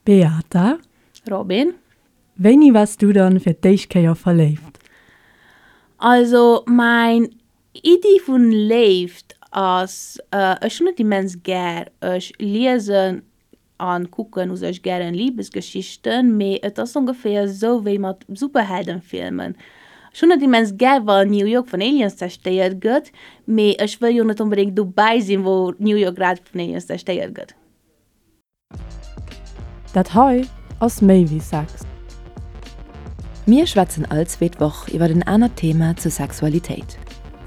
Beata. Robin. Wéini waars du dann fir d'éischt Kéier verléift? Also mäin Iddi vun Léift ass, ech hunn et immens gär, ech liesen an kucken u sech gären Liebesgeschichten, mee et ass ongeféier esou wéi mat Superheldenfilmen, ech hunn et immens gär wann New York vun Aliens zerstéiert gëtt, mee ech wëll jo net onbedéngt dobäi sinn wou New York grad vun Aliens zerstéiert gëtt. Dat hei ass méi wéi Sex. Mir schwätzen all zweet Woch iwwer en anert Thema zur Sexualitéit,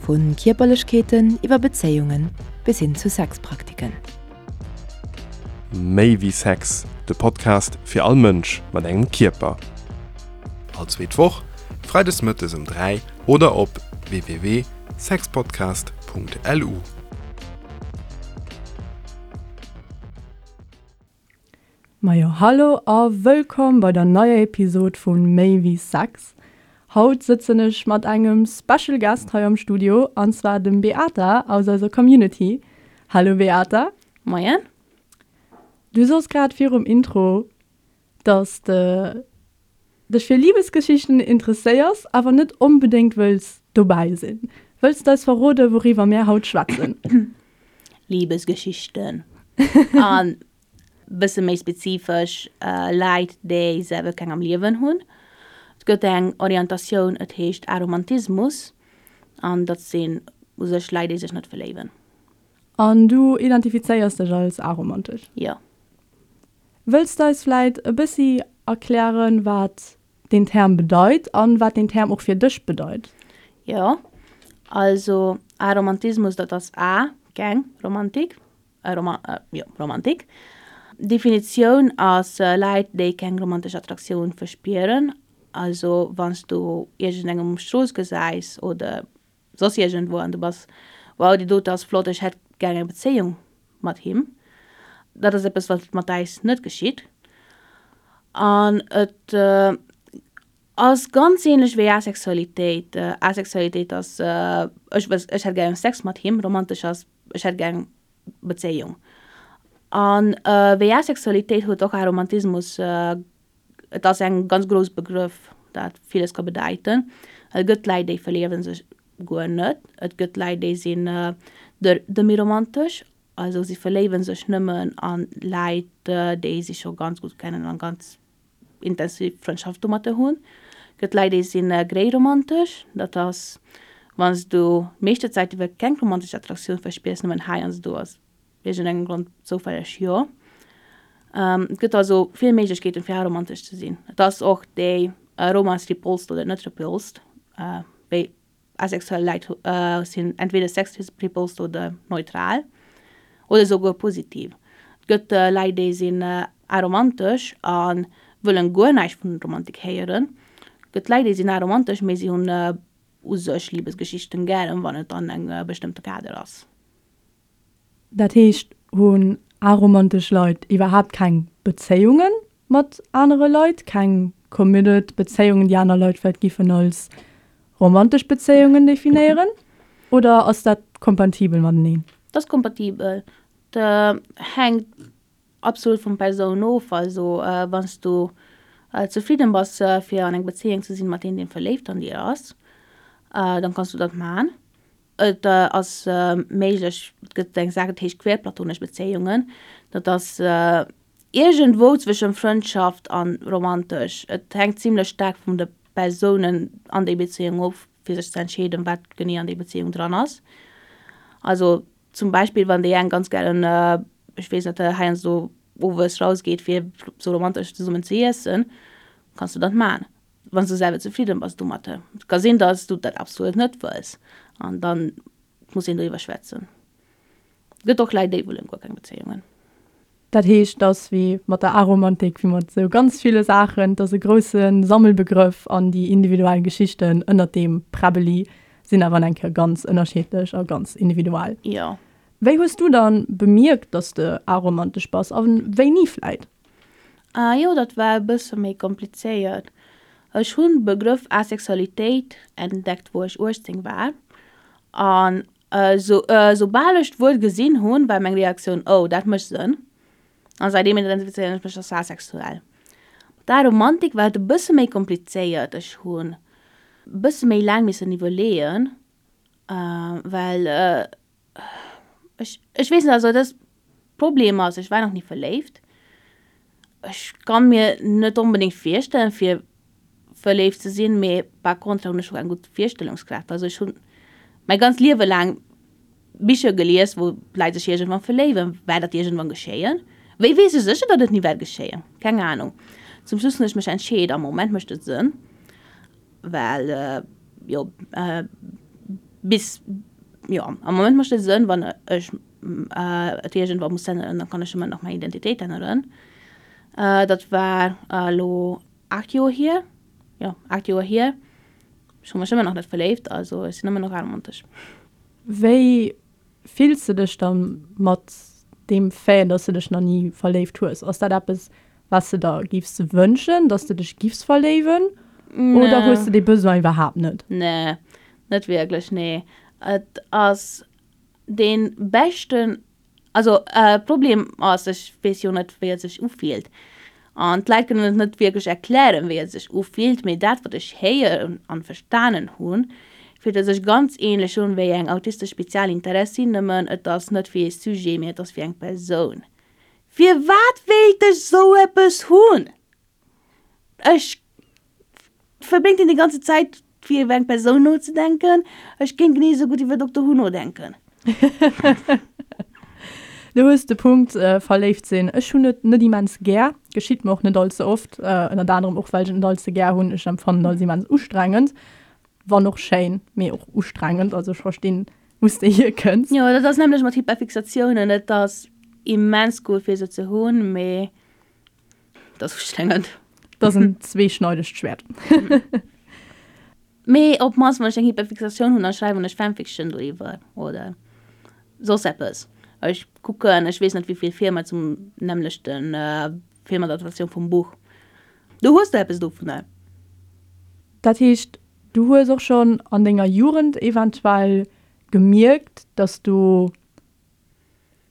vu Kierperlechkeeten iwwer Bezéiungen bis hin zu Sexpraktiken. Méi wéi Sex, de Podcast fir all Mënsch mat engem Kierper. All zweet Woch, freides mëttes um 3 oder op www.sexpodcast.lu. Majo hallo a wëllkomm bei der neier Episod vu Méi wéi Sex. Haut sëtzen ech mat engem Special Guest hei am Studio an zwar dem Beata aus eiser Community. Hallo Beata. Moien. Du soss grad virum Intro, dass de dech fir Libesgeschichten interesséiers, awer net onbedéngt wëlls dobäi sinn. Wëlls de eis verroden, wouriwwer mär haut schwätzen? Libesgeschichten. An bësse méi spezifesch, Leit, déi selwer keng am Liewen hunn. Et gëtt eng Orientatioun, et heescht Aromantismus, an dat sinn u sech Leit, déi sech net verléiwen. An du identifizéiers dech als aromantesch? Jo. Wëlls de eis vläit e bëssi erklären, wat deen Term bedeit an wat deen Term och fir dech bedeit? Jo, also Aromantismus, dat ass A, keng Romantik, jo, Romantik. Definitioun ass Leit, déi keng romantesch Attraktioun verspieren. Also wann s du iergendengem um Strooss gesäis oder soss iergendwou an du bass, wow, déi dote ass flott, ech hätt gär eng Bezéiung mat him. Dat ass eppes, wat mat äis net geschitt. An et ass ganz ähnlech wéi Asexualitéit. Asexualitéit ass, ech wëss, ech hätt gär Sex mat him, romantesch ass, ech hätt gär eng Bezéiung. An wéi Asexualitéit huet och Aromantismus Et ass eng ganz grouss Begrëff, dat villes ka bedeiten. Et gëtt Läit, déi verléiwe sech guer net. Et gëtt Läit, déi sinn demi-romantesch, also si verléiwe sech nëmmen a Läit, déi si scho ganz gutt kennen an ganz intensiv Frëndschaft domatter hunn. Et gëtt Läit, déi si gréiromantesch, dat ass, wann s du meeschte Zäit iwwer keng romantesch Attraktioun verspiers, nëmmen heiansdo ass Iergendengem Grond zoufälleg jo. Et gëtt also vill Méiglechkeeten fir aromantesch ze sinn. Et ass och déi Romance repulsed oder net repulsed. Wéi asexuell Leit sinn entweder sex repulsed oder neutral oder esouguer positiv. Et gëtt Leit déi sinn aromantesch a wëllen guer näischt vun Romantik héieren. Et gëtt Leit déi sinn aromantesch mee si hunn u sech Libesgeschichten gären wann et an engem bestëmmte Kader ass. Dat heescht, hunn aromantesch Leit iwwerhaapt keng Bezéiunge mat anere Leit, keng committed Bezéiungen, déi aner Leit vläicht giffen als romantesch Bezéiungen definéieren? Oder ass dat kompatibel mateneen? Dat ass kompatibel. Dat hänkt absolut vun Persoun of. Also wann s du zefridden bass fir an eng Bezéiung ze sinn mat een deen verléift an dir ass, dann kanns du dat man. Et ass méiglech, et gëtt eng Saach dat heescht queerplatonesch Bezéiungen. Dat ass iergendwou zwëschen Frëndschaft an romantesch. Et hänkt zimlech staark vun de Persounen an déi Bezéiung of fir sech ze entscheeden wat genee an déi Bezéiung dran ass. Also zum Beispill wann déi eng ganz gären, ech weess net, heiansdo owes rausgeet fir sou romantesch zesummen ze iessen, kanns du dat man. Wann s du selwer zefridden bass domatter. Et ka sinn, dass du dat absolut net wëlls an dann muss een doriwwer schwätzen. Et gëtt och Leit, déi wëllen guer keng Bezéiungen. Dat heescht, et ass wéi mat der Aromantik, wéi mat esou ganz ville Saachen, et ass e grousse Sammelbegrëff an déi individuell Geschichten ënnert deem Präbbeli sinn awer eng Kéier ganz ënnerschiddlech a ganz individuell. Jo. Wéi hues du dann bemierkt, dass de aromantesch bass a wéini vläit? Ah jo, dat war e bësse méi komplizéiert. Ech hunn Begrëff Asexualitéit entdeckt wou ech 18 war an soubal ech d'Wuert gesinn hunn, war meng Reaktioun, oh dat mécht Sënn. An säitdeem identifizéieren ech mech als asexuell. Mat der Aromantik war et e bësse méi komplizéiert. Ech hunn e bësse méi laang missen iwwerleeën, well ech, ech weess net, also dat Problem ass, ech war nach ni verléift. Ech kann mir net onbedéngt virstellen, fir verléift ze sinn, mee par contre hunn ech och eng gutt Virstellungskraaft. Also ech hunn mäi ganzt Liewe laang Bicher gelies, wou d'Leit sech iergendwann verléiwen. Wäert dat iergendwann geschéien? Wéi weess ech sécher, datt et ni wäert geschéien? Keng Anung. Zum Schluss hunn ech mech entscheet, am Moment mécht et Sënn, well jo bis, jo am Moment mécht et Sënn, wann ech et iergendwann muss änneren, da kann ech ëmmer nach meng Identitéit änneren. Dat war elo 8 Joer hier, jo 8 Joer hier. Ech hu mech ëmmer nach net verléift, also ech sinn ëmmer nach aromantesch. Wéi fills de dech da mat deem Fait, dass de dech nach ni verléift hues? Ass dat eppes, wat s de der giffs wënschen, dass de dech giffs verléiwen, oder hues de dee Besoin iwwerhaapt net? Nee, net wierklech, nee. Et ass dee beschten Also Problem ass, ech weess jo net wéi et sech ufillt an d'Leit kënnen et net wierklech erklären wéi et sech ufillt, mee dat wat ech héieren an verstanen hunn, fillt et sech ganz ähnlech un wéi eng autistesch Spezialinteressi, nëmmen et ass net fir ee Sujet, mee et ass fir eng Persoun. Firwat wéilt ech sou eppes hunn? Ech verbréngt een déi ganze Zäit fir iwwer eng Persoun nozedenken. Ech géing genee esou gutt iwwer Doktor Who nodenken. Du hues de Punkt, verléift sinn. Ech hunn et net immens gär, geschitt mer och net all ze oft, ënnert anerem och well ech et net all ze gär hunn. Ech empfannen et als immens ustrengend, wann och schéin, mee och ustrengend. Also ech verstinn, wou s de hierkënns. Jo, dat ass nämlech mat Hyperfixatiounen, et ass immens gutt fir se ze hunn, mee Dat ass ustrengend. Dat ass en zweeschneidegt Schwäert. Mee op d'mannst wann ech eng Hyperfixatioun hunn, da schreiwen ech Fanfiction doriwwer oder soss eppes. Ech kucken, ech weess net wéi vill Filmer zum nämmlechte Filmadaptatioun vum Buch. Do hues de eppes dovunner. Dat heescht, du hues och schonn an denger Jugend eventuell gemierkt, dass du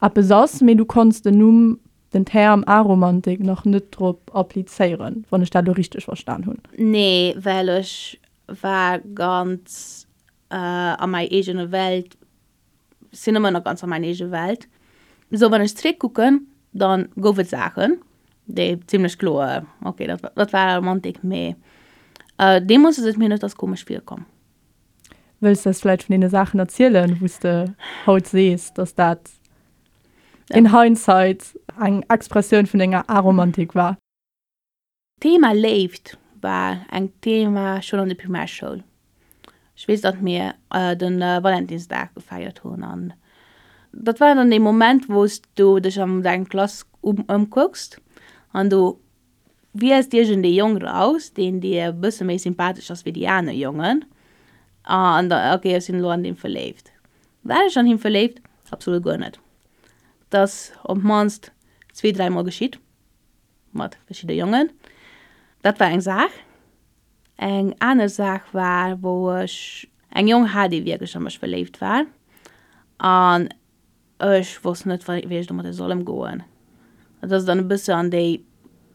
eppes ass, mee du konns den Numm, den Term Aromantik nach net drop applizéieren, wann ech dat elo richteg verstan hunn. Nee, well ech war ganz a mäi eegene Welt, sinn ëmmer nach ganz a mäin eege Welt. Sou wann ech zréck kucken, dann gouf et Saachen, déi zimlech kloer, ok, dat dat war Aromantik, mee deemools ass et mir net als komesch virkomm. Wëlls de eis vläicht vun deene Saachen erzielen, wou s de haut sees, dass dat in hindsight eng Expressioun vun denger Aromantik war? D'Thema Léift war eng Thema schonn an der Primärschoul. Ech weess, datt mir de Valentinsdag gefeiert hunn an dat war dann dee Moment, wou s du dech an deng Klass ëmkucks an du Wielst iergend ee Jong raus, deen dir e bësse méi sympathesch ass wéi déi aner Jongen, an da, ok, ech sinn elo an deem verléift. War ech an him verléift? Absolut guer net. Dat ass op d'mannst zwee, dräi Mol geschitt, mat verschidde Jongen. Dat war eng Saach. Eng aner Saach war, wou ech eng Jong hat, dee wierklech a mech verléift war, an Ech wosst net wei ech domadder soll emgoen. Dat ass dann e bësse an déi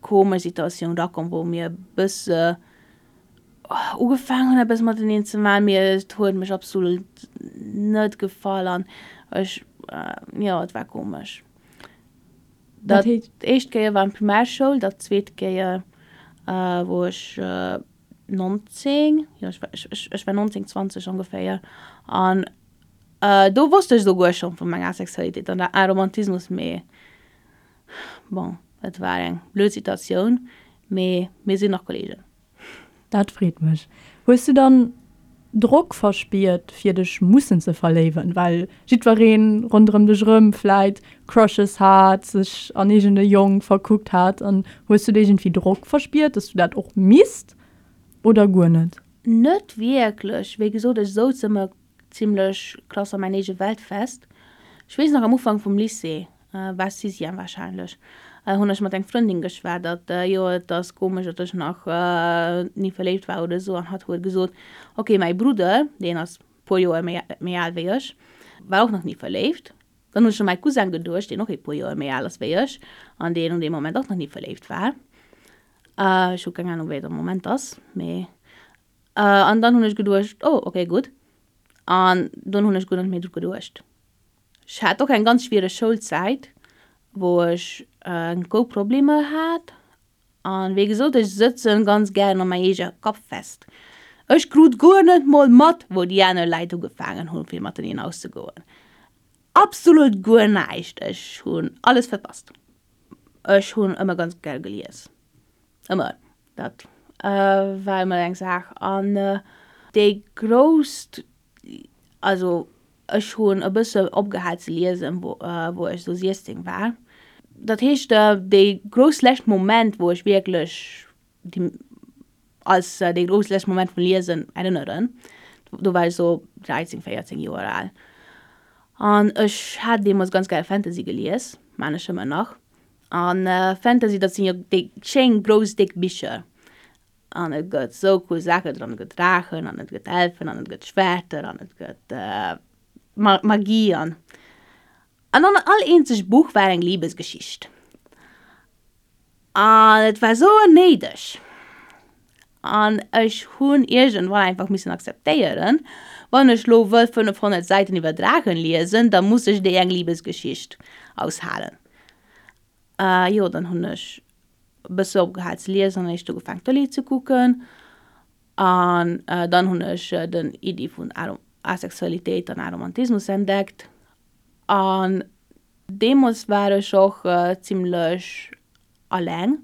komesch Situatioun rakomm wou mir e bësse ugefaangen hunn eppes mateneen ze maachen, mee et huet mech absolut net gefall an ech, jo et war komesch. Dat éischt Kéier war an Primärschoul, dat zweet Kéier wou ech 19, jo ech war 19, 20 ongeféier an Do wosst ech esouguer schonn vun menger Asexualitéit an der Aromantismus, mee bon, et war eng blöd Situatioun, mee mir sinn nach Kollegen. Dat freet mech. Hues du dann Drock verspiert fir dech mussen ze verléiwen, well jiddwereen ronderëm dech erëm vläit Crushes hat, sech an iergend e Jong verkuckt hat an hues du iergendwéi Drock verspiert, dass du dat och misst oder guer net? Net wierklech, wéi gesot ech souz ëmmer zimlech krass a mäin eege Welt fest. Ech weess nach am Ufank vum Lycée, war Sixième wahrscheinlech, hunn ech mat eng Frëndin geschwat, datt jo et ass komesch, datt ech nach ni verléift war oder esou an hatt huet gesot, ok mäi Brudder, deen ass puer Joer méi al wéi ech, war och nach ni verléift. Dann hunn ech u mäi Cousin geduecht, deen och e puer Joer méi al ass wéi ech an deen un deem Moment och nach ni verléift war. Ech hu keng Anung, wéi et am Moment ass, mee. An dann hunn ech geduecht, oh, okay, gutt. An dunn hunn ech guer net méi dru geduecht. Ech hat och eng ganz schwiereg Schoulzäit, wou ech grouss Problemer hat An wéi gesot, ech sëtzen ganz gären an mäi eege Kapp fest. Ech krut guer net mol mat, wou déi aner Läit ugefaangen hunn fir mateneen auszegoen. Absolut guer näischt, ech hunn alles verpasst. Ech hunn ëmmer ganz gär gelies, ëmmer, dat war ëmmer eng Saach. An déi grousst Also ech hunn e bësse opgehal ze liesen, wou ech esou 16 war. Dat heescht, dee grouss lescht Moment, wou ech wierklech déi als dee grouss lescht Moment vum Liesen erënneren, do war ech esou 13, 14 Joer al. An ech hat deemools ganz gär Fantasy gelies, maan ech ëmmer nach. An Fantasy, dat sinn jo déi schéin grouss déck Bicher. An et gëtt sou cool Saachen dran, et gëtt Draachen an et gëtt Elfen an et gëtt Schwerter an et gëtt Magie an an an all eenzeg Buch war eng Liebesgeschicht. An et war sou onnéideg. An ech hunn iergendwann einfach missen akzeptéieren, wann ech lo wëll 500 Säiten iwwer Draachen liesen, da muss ech déi eng Liebesgeschicht aushalen. Jo, dann hunn ech e bësse opgehal ze liesen an éischt ugefaangen Tëlee ze kucken an dann hunn ech den Iddi vun Asexualitéit an Aromantismus entdeckt an deemools war ech och zimmlech alleng.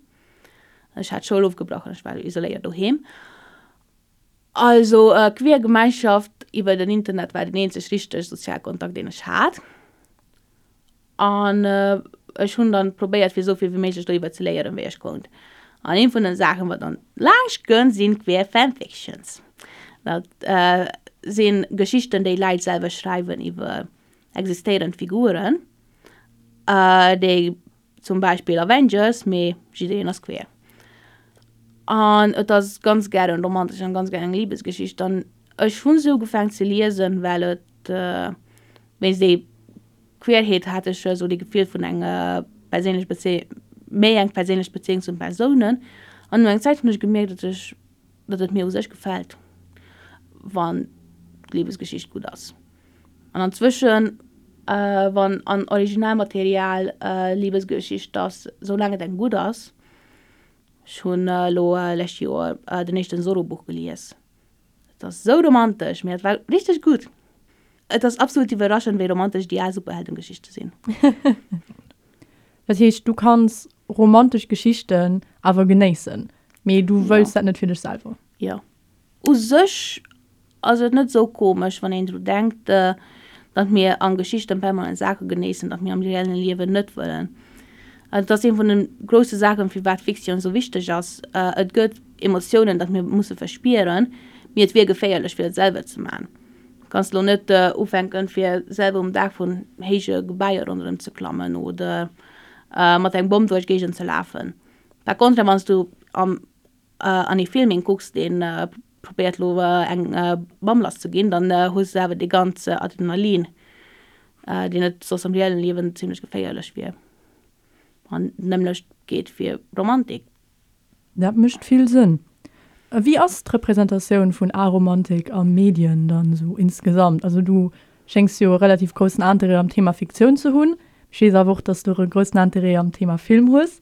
Ech hat d'Schoul ofgebrach an ech war isoléiert doheem. Also queer Gemeinschaft iwwer den Internet war den eenzeg richteg sozial Kontakt deen ech hat. An ech hunn dann probéiert fir esou vill wéi méiglech doriwwer ze léieren wéi ech konnt. An een vun den Saachen wat dann laanscht kënnt sinn queer Fanfictions. Dat sinn Geschichten déi Läit selwer schreiwen iwwer existéierend Figuren déi Zum Beispill Avengers, mee jiddereen ass queer. An et ass ganz gären romantesch an ganz gären eng Libesgeschicht. An ech hunn se ugefaangen ze liesen, well et wéinst déi Queerheet hat ech esou dee Gefill vun enger perséinlech Bezéi méi eng perséinlech Bezéiung zu den Persounen. An no eng Zäit hunn ech gemierkt, datt ech datt et mir u sech gefält, wann d'Libesgeschicht gutt ass. An anzwëschen, wann an Originalmaterial Libesgeschicht ass, soulaang et eng gutt ass, ech hunn elo lescht Joer den éischten Zorro-Buch gelies, et ass esou romantesch, mee et war richteg gutt. Et ass absolut iwwerraschend, wéi romantesch déi al Superheldengeschichte sinn. Dat heescht, du kanns romantesch Geschichten awer genéissen, mee du wëlls dat net fir dech selwer? Jo. U sech ass et net esou komesch, wann een dru denkt, datt mir a Geschichten permanent Saache genéissen, datt mir am reellen Liewen net wëllen. Et ass ee vun de grousse Saachen, firwat Fiktioun esou wichteg ass. Et gëtt Emotiounen, datt mir musse verspieren, mee et wier geféierlech, fir et selwer ze man. Du kanns elo net ufänken, fir selwer um Daach vun héije Gebaier ronderëm ze klammen oder mat engem Bomm duerch d'Géigend ze lafen. Par contre, wann s du am an ee Film een kucks deen probéiert lo eng Bam lass ze ginn, dann hues de awer dee ganze Adrenalin deen et soss am reellen Liewen zimlech geféierlech wier. An d'nämmlecht geet fir Romantik. Dat mécht vill Sënn. Wéi ass d'Representatioun vun Aromantik a Medien dann esou insgesamt? Also du schéngs jo e relativ groussen Interêt am Thema Fiktioun ze hunn. Ech weess awer och, dass du och e groussen Interêt am Thema Film hues.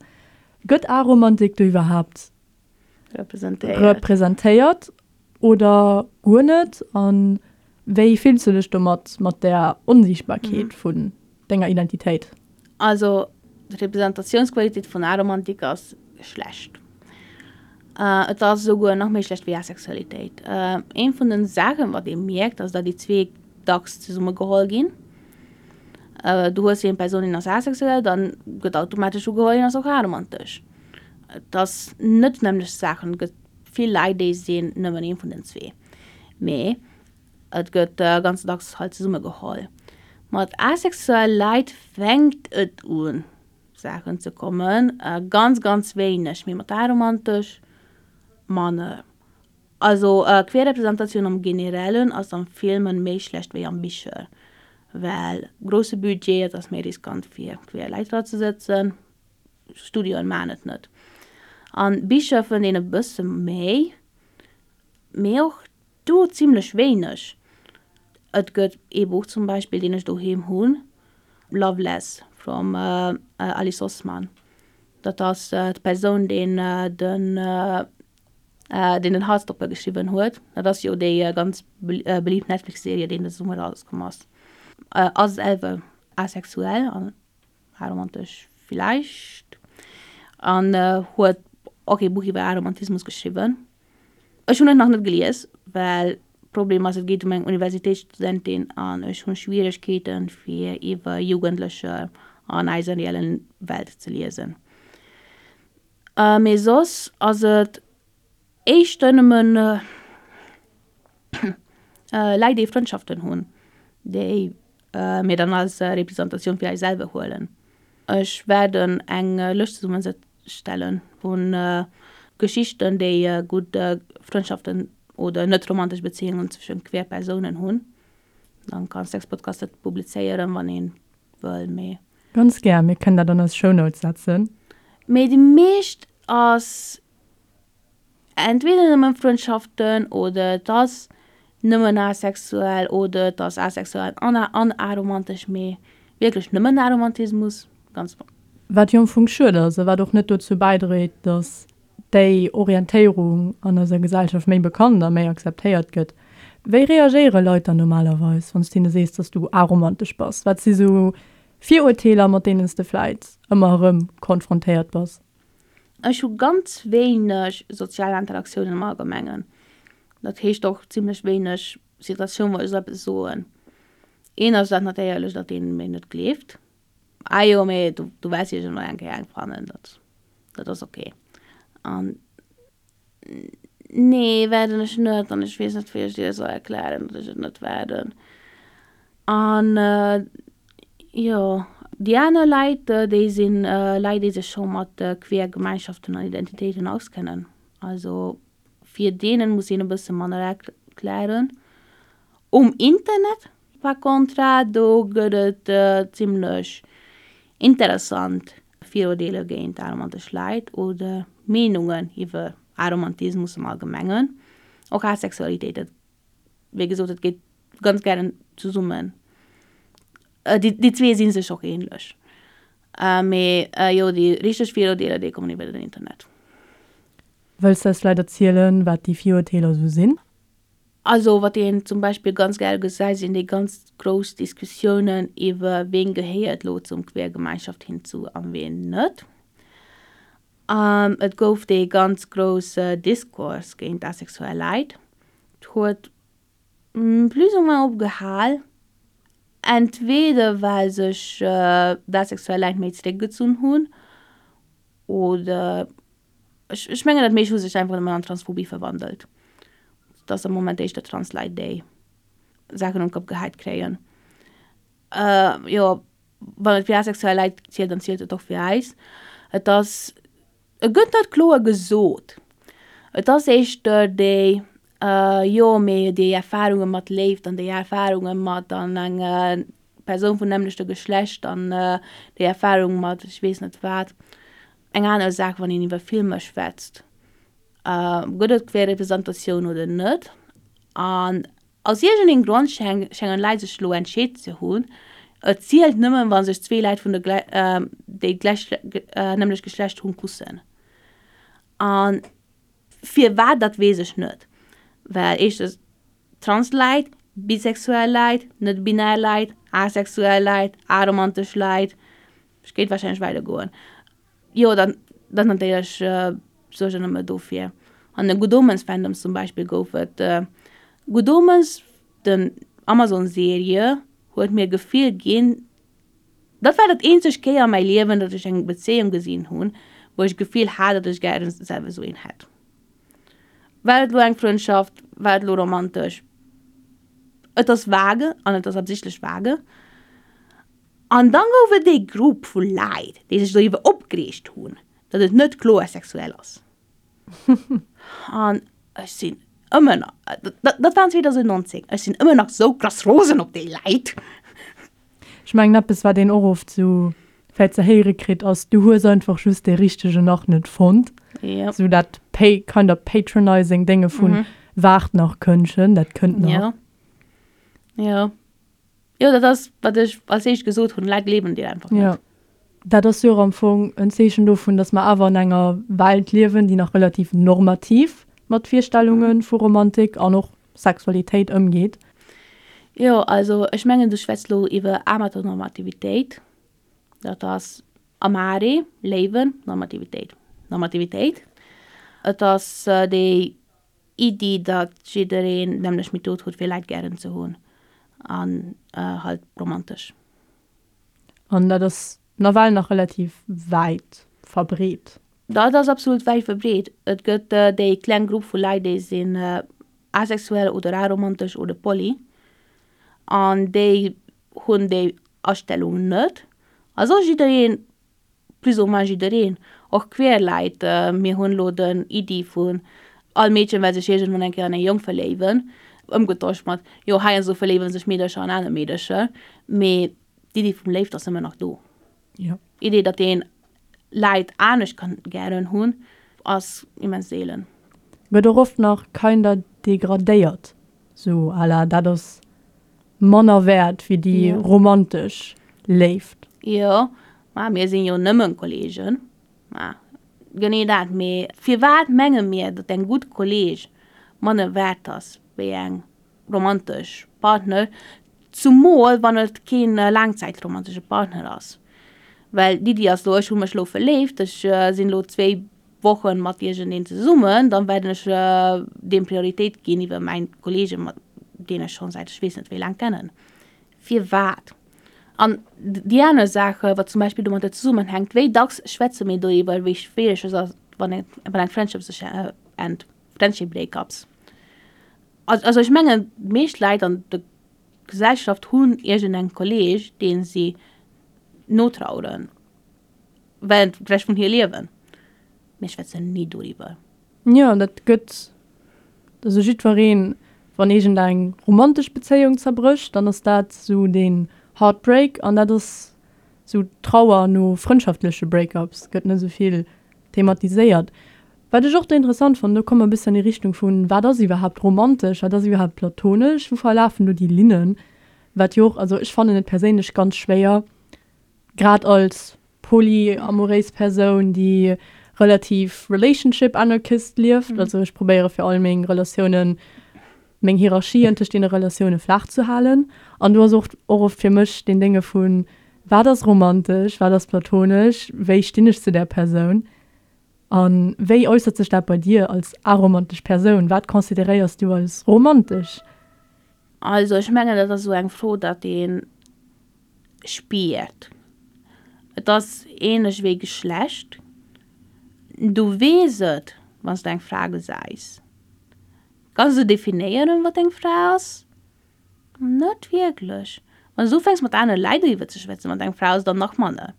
Gëtt Aromantik do iwwerhaapt representéiert oder guer net? A wéi fills du dech domat, mat där Onsiichtbarkeet vun denger Identitéit? Also d'Representatiounsqualitéit vun Aromantik ass schlecht. Et ass esouguer nach méi schlecht wéi Asexualitéit. Eent vun den Saachen, wat ee mierkt, ass datt déi zwee dacks zesumme geholl ginn. Du hues eng Persoun, déi ass asexuell, dann gëtt automatesch ugeholl, hien ass och aromantesch. Et ass net d'nämmlecht Saachen. Et gëtt vill Leit, déi sinn nëmmen ee vun den zwee. Mee et gëtt ganz dacks halt zesumme geholl. Mat asexuell Leit fänkt et un Saachen ze kommen, ganz ganz wéineg, mee mat aromantesch manner. Also Queerrepresentatioun am Generellen ass am Filmen méi schlecht wéi am Bicher. Well grousse Budget, et ass méi riskant fir queer Leit dra ze sëtzen, Studioen maachen et net. An Bicher fënnt een e bësse méi, mee och do zimlech wéineg. Et gëtt ee Buch zum Beispill, deen ech doheem hunn, Loveless vum Alice Oseman. Dat ass d'Persoun, deen den deen den Heartstopper geschriwwen huet. Dat ass jo déi ganz belieft Netflix-Serie, déi de Summer erauskomm ass. Ass selwer asexuell an aromantesch villäicht an huet och ee Buch iwwer Aromantismus geschriwwen. Ech hunn et nach net gelies, well Problem ass, et geet ëm eng Universitéitsstudentin an ech hunn Schwieregkeeten, fir iwwer Jugendlecher an eiser reellen Welt ze liesen. Mee soss ass et éischter nëmmen Läit déi Frëndschaften hunn, déi mir dann als Representatioun fir eis selwer huelen. Ech waerden eng Lëscht zesummestellen vun Geschichten déi gutt Frëndschaften oder net romantesch Bezéiungen zwëschen queer Persounen hunn. Dann kann Sexpodcast dat publizéieren wann een wëll, mee. Ganz gär, mir kënnen dat an eis Shownotes setzen. Mee déi meescht ass entweder nëmmen Frëndschaften oder et ass nëmmen asexuell oder et ass asexuell an an aromantesch, mee wierklech nëmmen Aromantismus, ganz. Wat jo am Fong schued ass a wat och net dozou bäidréit, dass déi Orientéierung an eiser Gesellschaft méi bekannt a méi akzeptéiert gëtt. Wéi reagéiere Leit dann normalerweis, wann s de hinne sees, dass du aromantesch bass? Wat si sou Virurteeler, mat deenen s de vläit ëmmer erëm konfrontéiert bass? Ech hu ganz wéineg sozial Interaktiounen am Allgemengen. Dat heescht och zimlech wéineg Situatioun, wou ech esou eppes soen. Een ass dat natierlech, datt een mir net gleeft. Ah jo, mee du, du wäers iergendwann eng Kéier eng fannen, dat, dat ass ok. An nee, wäerten ech net an ech weess net, wéi ech dir soll erklären, datt ech et net wäerten. An jo, déi aner Leit, déi sinn Leit, déi sech scho mat queer Gemeinschaften an Identitéiten auskennen. Also fir deenen muss een e bësse manner erklären. Um Internet par contra, do gëtt et zimlech interessant Viruerteeler géint aromantesch Leit oder Meenungen iwwer Aromantismus am Allgemengen, och Asexualitéit. Dat, wéi gesot, dat geet ganz gären zesummen. Déi zwee si sech och ähnlech. Mee jo, déi richteg Viruerteeler, déi kommen iwwer den Internet. Wëlls de eis vläit erzielen, wat déi Viruerteeler esou sinn? Also wat een zum Beispill ganz gäre gesäit, sinn déi ganz grouss Diskussiounen iwwer ween gehéiert lo zum queer Gemeinschaft hinzu an ween net. Et gouf dee ganz grousse Diskurs géint asexuell Leit. Et huet plus ou moins opgehal, entweder well sech d'asexuell Leit méi zeréckgezunn hunn oder Ech, ech mengen, dat meescht hu sech einfach nëmmen an Transphobie verwandelt. Et ass am Moment éischter Transleit, déi Saachen un d'Kopp gehäit kréien. Jo, wann et fir asexuell Leit zielt, dann zielt et och fir eis. Et ass, et gëtt net kloer gesot. Et ass éischter déi, jo, mee déi Erfarunge mat Léift an déi Erfarunge mat an eng Persoun vum nämmlechte Geschlecht an déi Erfarung mat ech weess net wat. Eng aner Saach, wann een iwwer Filmer schwätzt, gëtt et Queerrepresentatioun oder net? An aus iergendengem Grond schéngen Leit sech elo entscheet ze hunn, et zielt nëmmen, wa sech zwee Leit vun der déi d'nämmlecht Geschlecht hunn, kussen. A firwat, dat weess ech net. Well éischtens, Trans-Leit, bisexuell Leit, net-binär Leit, asexuell Leit, aromantesch Leit, Ech kéint wahrscheinlech weider goen. Jo, dann, dann natierlech suergen nëmme dofir. An de Good Omens Fandoms zum Beispill gouf et. Good Omens, den Amazon Serie, huet mir Gefill ginn, dat war dat eenzeg Kéier a mäi Liewen, datt ech eng Bezéiung gesinn hunn, wou ech Gefill hat, datt ech gären selwer esou een hätt. War et elo eng Frëndschaft, war et elo romantesch? Et ass vage an et ass absichtlech vage. An dann gouf et ee Grupp vu Läit, déi sech doriwwer opgereegt hunn, datt et net kloer sexuell ass. An ech sinn ëmmer nach, dat war 2019, ech sinn ëmmer nach sou krass rosen op déi Läit. Ech mengen eppes wat een och oft sou vläit ze héiere kritt ass, du hues einfach just dee richtegen nach net fonnt. Jo. Sou dat pa kind of patronizing Dénge vun waart nach Këndchen, dat kënnt nach. Jo. Jo. Jo, dat ass, wat ech als éischt gesot hunn, Leit gleewen dir einfach net. Jo. Dat ass jo och am Fong en Zeechen dovun, datt mer awer an enger Welt liewen, déi nach relativ normativ mat Virstellunge vu Romantik an och Sexualitéit ëmgeet. Jo, also ech mengen, du schwätz lo iwwer Amatonormativitéit. Dat ass Amare, Léiwen, Normativitéit. Normativitéit. Et ass déi Iddi, datt jiddereen d'nämmlecht Method huet fir Leit gären ze hunn an halt romantesch. An dat ass nawell nach relativ wäit verbreet. Dat ass absolut wäit verbreet. Et gëtt déi kleng Grupp vu Leit, déi sinn asexuell oder aromantesch oder poly an déi hunn déi Astellung net. A soss jiddereen plus ou moins jiddereen, och queer Leit, mir hunn elo den Iddi vun all Meedchen well sech iergendwann eng Kéier an e Jong verléiwen, ëmgetosch mat jo heiansdo verléiwe sech Meedercher an aner Meedercher, mee d'Iddi vum Léift ass ëmmer nach do. Jo. D'Iddi, datt een Leit anescht kann gären hunn, ass immens seelen. Gëtt och oft nach kinder degradéiert, sou à la dat ass manner wäert wéi déi romantesch Léift. Jo, ma mir sinn jo nëmmen Kollegen. Ma genee dat. Mee firwat menge mir, datt eng gutt Kolleg manner wäert ass wéi eng romantesch Partner, zumol wann et keen laangzäitromantesche Partner ass? Well d'Iddi ass lo, ech hu mech lo verléift, ech sinn lo zwéi Wochen mat iergendeen zesummen, dann werden ech deem Prioritéit ginn iwwer mäin Kollege mat deen ech schonn säit ech weess net wéi laang kennen. Firwat? An déi aner Saach, wat zum Beispill domadder zesummenhänkt, wéi dacks schwätze mir doriwwer, wéi schwiereg et ass, wann eng wann eng Friendship sech ennt, Friendship Breakups. Also ech mengen, d'meescht Leit an der Gesellschaft hunn iergendeng Kolleg, deen si notraueren. Während de Rescht vun hir Liewen. Mir schwätzen ni doriwwer. Jo, dat gëtt, also jiddwereen, wann iergend eng romantesch Bezéiung zerbrécht, dann ass dat esou deen Heartbreak an dat ass esou d'Trauer no frëndschaftleche Breakups gëtt net esou vill thematiséiert. Wat ech och do interessant fannen, do komme mer e bëssen an déi Richtung vun, wat ass iwwerhaapt romantesch, wat ass iwwerhaapt platonesch, wou verlafen do déi Linnen, wat jo och, also ech fannen et perséinlech ganz schwéier, Grad als polyamoréis Persoun, déi relativ relationship anarchist lieft, also ech probéiere fir all meng Relatiounen, meng Hierarchien tëscht deene Relatioune flaach ze halen. An do ass och och oft fir mech deen Dénge vun, wat ass romantesch, wat ass platonesch, wéi stinn ech zu där Persoun? A wéi äussert sech dat bei dir als aromantesch Persoun? Wat consideréiers du als romantesch? Also ech mengen dat ass esou eng Fro, datt ee spiert. Et ass ähnlech wéi Geschlecht, du weess et wann s du eng Fra gesäis. Kanns du definéieren wat eng Fra ass? Net wierklech. Wann s du ufänks mat anere Leit doriwwer ze schwätzen wat eng Fra ass, dann nach manner.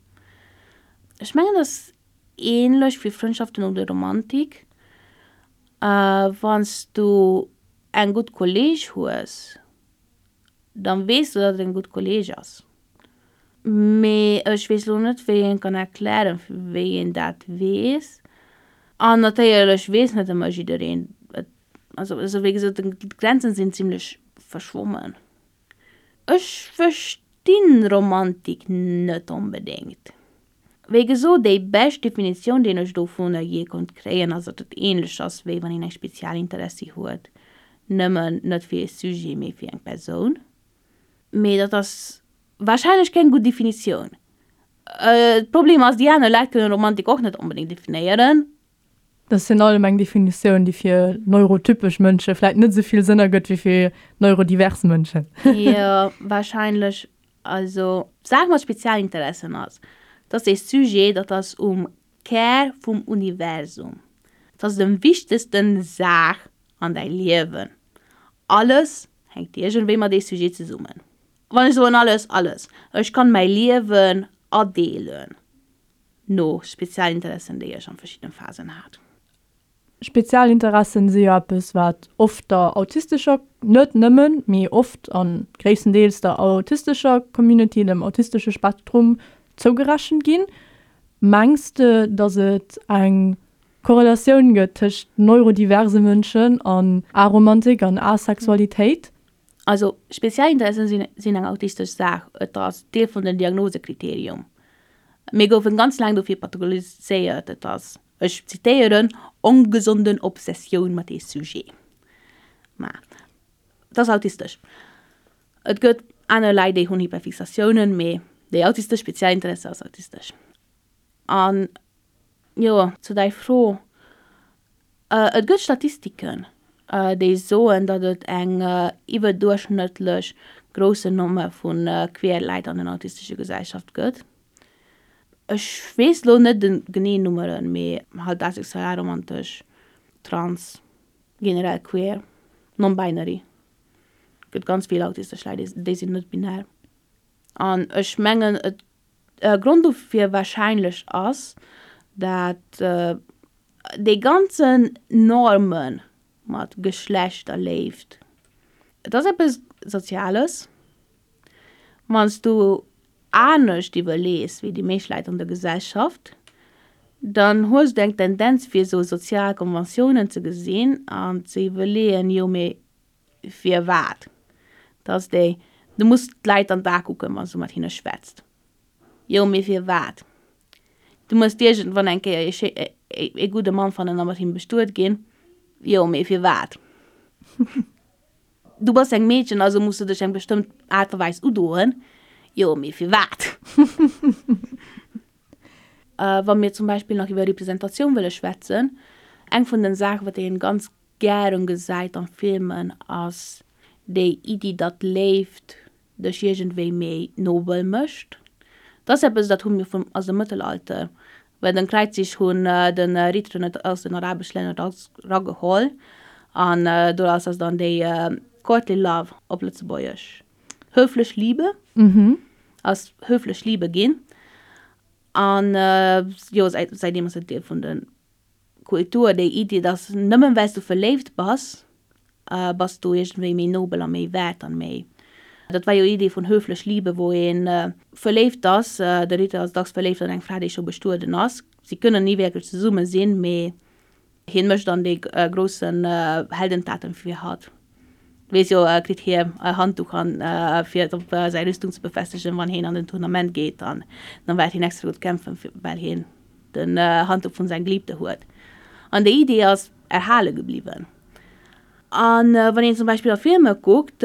Ech mengen et ass ähnlech wéi Frëndschaften oder Romantik, wann s du eng gutt Kolleg hues, dann weess du, datt et eng gutt Kolleg ass. Mee ech weess lo net, wéi een kann erklären, wéi een dat weess. An natierlech weess net ëmmer jiddereen et. Also, also wéi gesot, d'Grenzen sinn zimlech verschwommen. Ech verstinn Romantik net onbedéngt. Wéi gesot, déi bescht Definitioun, déi ech dovunner jee konnt kréien, ass, datt et ähnlech ass, wéi wann een eng spezial Interessi huet, nëmmen net fir ee Sujet, mee fir eng Persoun. Mee dat ass warscheinlech keng gutt Definitioun. D'Problem ass, déi aner Leit kënnen Romantik och net onbedéngt definéieren. Dat ass virun allem eng Definitioun, déi fir neurotypesch Mënsche vläit net esou vill Sënn ergëtt wéi fir neurodivers Mënschen. Jo, warscheinlech. Also, d'Saach mat Spezialinteressen ass, dat ass ee Sujet, dat ass um Kär vum Universum. Dat ass dem wichtegsten Saach an däi Liewen. Alles hänkt iergendwéi mat dee Sujet zesummen. Wann ech soen alles, alles. Ech kann mäi Liewen adeelen no Spezialinteressen, déi ech an verschiddenen Phasen hat. Spezialinteressen si jo eppes, wat oft der autistescher, net nëmmen, mee oft a gréisstendeels der autistescher Community, dem autistesche Spektrum zougerechent ginn. Mengs de, datt et eng Korrelatioun gëtt tëscht neurodiverse Mënschen an Aromantik an Asexualitéit? Also Spezialinteressen sinn eng autistesch Saach, et ass Deel vun den Diagnosekriterium. Mir goufen ganz laang dofir pathologiséiert, et ass Ech zitéieren, ongesonden Obsessioun mat dee Sujet. Mä et ass autistesch. Et gëtt aner Leit, déi hunn Hyperfixatiounen, mee déi autistesch Spezialinteresse ass autistesch. An jo, zu däi Fro, Et gëtt Statistiken, déi soen, datt et eng iwwerduerchschnëttlech groussen Nommer vu queer Leit an den autistesche Gesellschaft gëtt. Ech weess lo net de genee Nummeren, mee halt asexuell, aromantesch, trans, generell queer, non-binary. Gëtt ganz vill autistesch Leit, déi sinn net binär. An ech mengen et Grond dofir warscheinlech ass, dat déi ganzen Normen mat Geschlecht a Léift, et ass eppes Soziales, wann s du anescht iwwerlees wéi déi meescht Leit an der Gesellschaft, dann hues du eng Tendenz fir esou sozial Konventiounen ze gesinn an ze iwwerleeën, jo mee firwat? Dat ass déi, du muss d'Leit an d'A kucken, wann s du mat hinne schwätzt. Jo mee firwat? Du muss iergendwann eng Kéier ee gudde Mann fannen a mat him bestuet ginn. Jo mee firwat? Du bass eng Meedchen, also muss du dech eng bestëmmt Aart a Weis udoen. Jo, mee firwat? Wa mir zum Beispill nach iwwer Representatioun wëlle schwätzen, eng vun den Saachen, wat een ganz gären gesäit an Filmen, ass déi Iddi, datt Léift dech iergendwéi méi nobel mécht. Dat ass eppes, dat hu mir vum, aus dem Mëttelalter, well den Kräizzich hunn de Ritteren et aus den arabesch Länner dacks rageholl an doraus ass dann déi courtly love, op Lëtzebuergesch höflich Liebe, ass höflich Liebe ginn. An jo, säitdeem ass et Deel vun de Kultur, déi Iddi, dass nëmmen well s du verléift bass, bass du iergendwéi méi nobel a méi wäert an méi. Dat war jo Iddi vun höflich Liebe, wou ee verléift ass, de Ritter ass dacks verléift an eng Fra, déi scho bestueden ass. Si kënnen ni wierklech zesumme sinn, mee hien mécht dann dee groussen Heldentaten fir hatt. Weess jo, kritt hie e Handduch an fir et op säi Rüstung ze befestegen, wann hien an den Tournament geet, an dann wäert hien extra gutt kämpfen, well hien den Handduch vun seng Geliebte huet. An déi Idee ass erhale gebliwwen. An wann een zum Beispill a Filmer kuckt,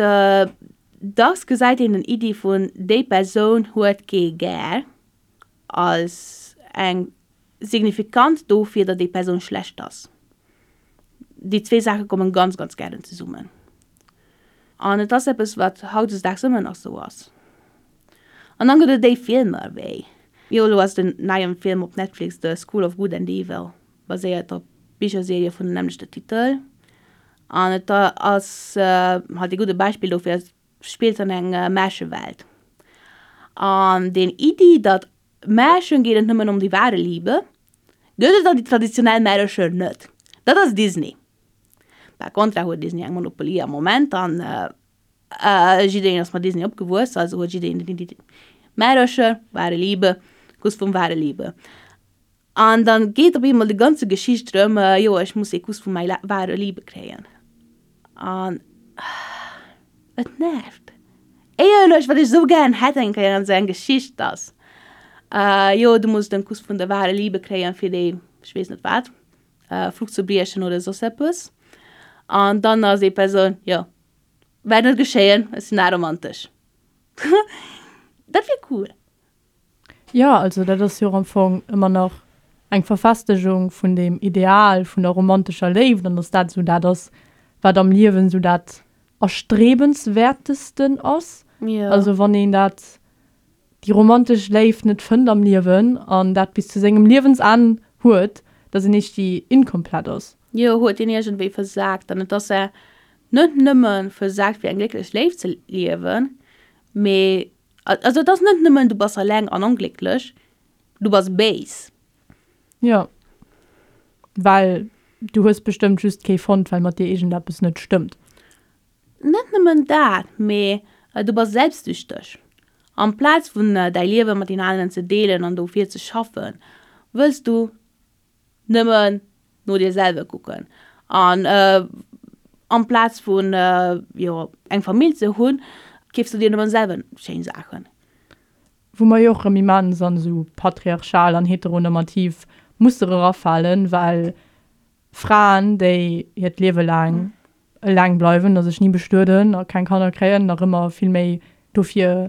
dacks gesäit een den Iddi vun déi Persoun huet kee gär als eng signifikant dofir, datt déi Persoun schlecht ass. Déi zwee Saache kommen ganz, ganz gären zesummen. An et ass eppes, wat hautdesdaags ëmmer nach esou ass. An dann gëtt et déi Filmer wéi, jo elo ass den neien Film op Netflix The School of Good and Evil, baséiert op Bicherserie vun dem nämmlechte Titel. An et ass halt ee gudde Beispill dofir, et spillt an eng Märchewelt. An deen Iddi, datt Märchen geet et nëmmen ëm déi wahre Liebe, gëtt et an déi traditionell Märercher net. Dat ass Disney. Par contra huet Disney eng Monopolie am Moment an jiddereen ass mat Disney opgewuess, also huet jiddereen den Iddi Märercher, wahre Liebe, Kuss vum wahre Liebe. An dann geet op eemol déi ganze Geschicht drëm, jo ech muss ee Kuss vu mäi wahre Liebe kréien. An et nervt. Éierlech, wat ech esou gären hätt eng Kéier an esou eng Geschicht, dass jo du muss den Kuss vun der wahre Liebe kréien fir déi ech weess net wat Fluch ze briechen oder soss eppes. An dann ass déi Persoun, jo wäert net geschéien, ech sinn aromantesch. Dat wier cool. Jo, also dat ass jo och am Fong ëmmer nach eng Verfestegung vun deem Ideal vun der romantescher Léift an dass dat esou dat ass, wat am Liewen esou dat Erstrebenswertesten ass. Also wann een dat, déi romantesch Léift net fënnt am Liewen an dat bis zu sengem Liewensenn huet, dass een iergendwéi inkomplett ass. Jo, huet een iergendwéi versagt an et ass net nëmme versagt fir eng glécklech Léift ze liewen, mee Also et ass net nëmmen du bass alleng an onglécklech, du bass béis. Jo, well. Du hues bestëmmt just kee fonnt, well mat dir iergendeppes net stëmmt. Net nëmmen dat, mee du bass selbstsüchteg. Amplaz vun däi Liewe mat den aneren ze deelen an dofir ze schaffen, wëlls du nëmmen no dir selwer kucken. An amplaz vun, jo, eng Famill ze hunn, keefs du dir nëmmen selwer schéin Saachen. Wou mer jo och erëm immens an esou patriarchal an heteronormativ Muster erafalen, well Fraen, déi hiert Liewe laang eleng bleiwen a sech ni bestueden a keng Kanner kréien, nach ëmmer vill méi dofir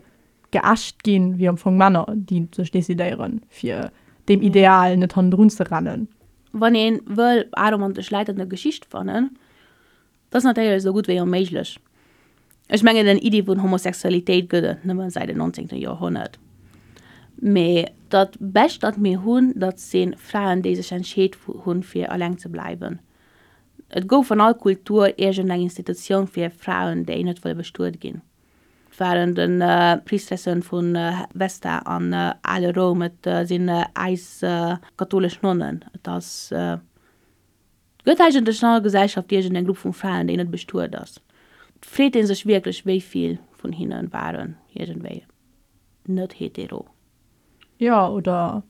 geächt ginn, wéi am Fong Männer, déi sech decidéieren, fir deem Ideal net hannendrun ze rennen. Wann ee wëll aromantesch Leit an der Geschicht fannen, Dat ass natierlech esou gutt wéi onméiglech. Ech mengen den Iddi vun Homosexualitéit gëtt et nëmme säit den 19. Joerhonnert. Mee dat bescht dat mir hunn, dat si Fraen déi sech entscheet hunn fir eleng ze bleiwen. Et gouf an all Kultur iergend eng Institutioun fir Fraen déi net wëlle bestuet ginn. Et waren de Priestressen vu Vesta an ale Roum, et sinn äis katholesch Nonnen, et ass. Gëtt eigentlech an all Gesellschaft iergend eng Grupp vu Fraen, déi net bestuet ass? Et freet ee sech wierklech, wéi vill vun hinne waren iergendwéi net hetero. Jo, oder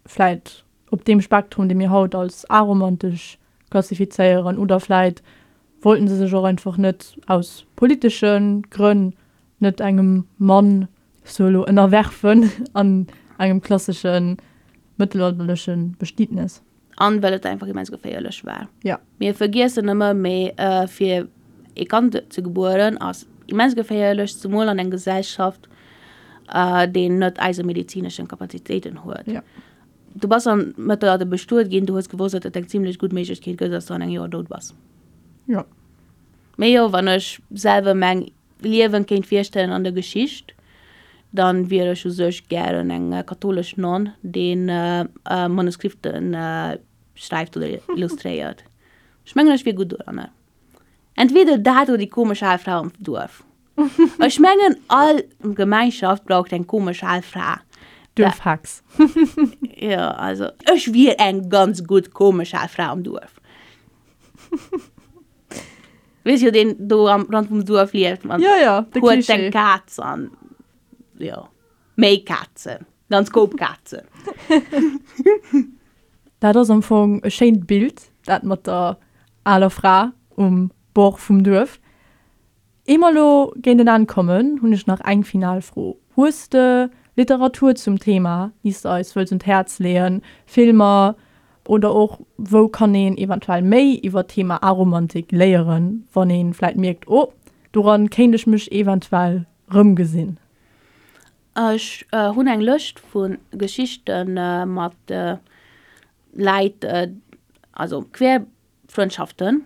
vläit op deem Spektrum, dee mir haut als aromantesch klassifizéieren. Oder vläit wollten se sech och einfach net aus politesche Grënn net engem Mann sou elo ënnerwerfen an engem klassesche mëttelalterleche Bestietnes. An well et einfach immens geféierlech war. Ja. Mir vergiessen ëmmer méi, fir ee Kand ze gebueren ass immens geféierlech, zemol an eng Gesellschaft, déi net eise medezineschen Kapazitéiten huet. Ja. Du bass am Mëttelalter bestuet ginn, du hues gewosst, datt et eng zimlech gutt Méiglechkeet gëtt, datt s du an engem Joer dout bass. Ja. Mee jo, wann ech selwer meng Liewen kéint virstellen an der Geschicht, dann wier ech u sech gären eng katholesch Nonn, déi Manuskripten schreift oder illustréiert. Ech mengen ech wier gutt doranner. Entweder dat oder déi komesch al Fra am Duerf. Ech mengen all Gemeinschaft braucht eng komesch al Fra. Duerfhex. Jo, also ech wier eng ganz gutt komesch al Fra am Duerf. Weess jo deen do am Rand vum Duerf lieft mat Ja, ja, de huet Klischee. eng Kaz an jo méi Kazen, ganz Koup Kazen. Dat ass am Fong e schéint Bild, dat mat der aler Fra um Bord vum Duerf. Ier mer elo géint en Enn kommen, hunn ech nach eng final Fro. Hues de Literatur zum Thema, déi s de eis wëlls un d'Häerz leeën? Filmer oder och wou kann een eventuell méi iwwer d'Thema Aromantik léieren, wann ee vläit mierkt, oh, doran kéint ech mech eventuell rëmgesinn? Ech hunn eng Lëscht vu Geschichte mat Läit, also quer Frëndschaften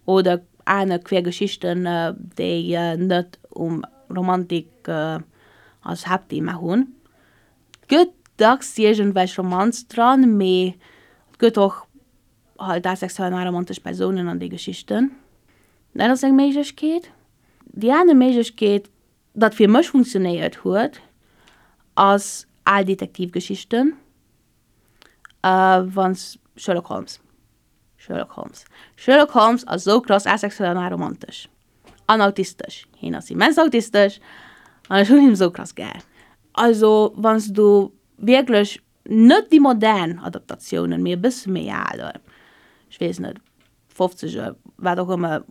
oder aner queer Geschichten, déi net um Romantik als Haaptthema hunn. Et gëtt dacks iergendwelch Romanz dran, mee et gëtt och halt asexuell an aromantesch Persounen an déi Geschichten. Dat ass eng Méiglechkeet. Déi aner Méiglechkeet, dat fir mech funktionéiert huet, ass al Detektivgeschichten, wann s Sherlock Holmes. Sherlock Holmes. Sherlock Holmes ass sou krass asexuell an aromantesch. An autistesch. Hien ass immens autistesch an ech hunn him sou krass gär. Also wann s du wierklech net déi modern Adaptatiounen, mee e bësse méi al, ech weess net, fofzeger, wat och ëmmer,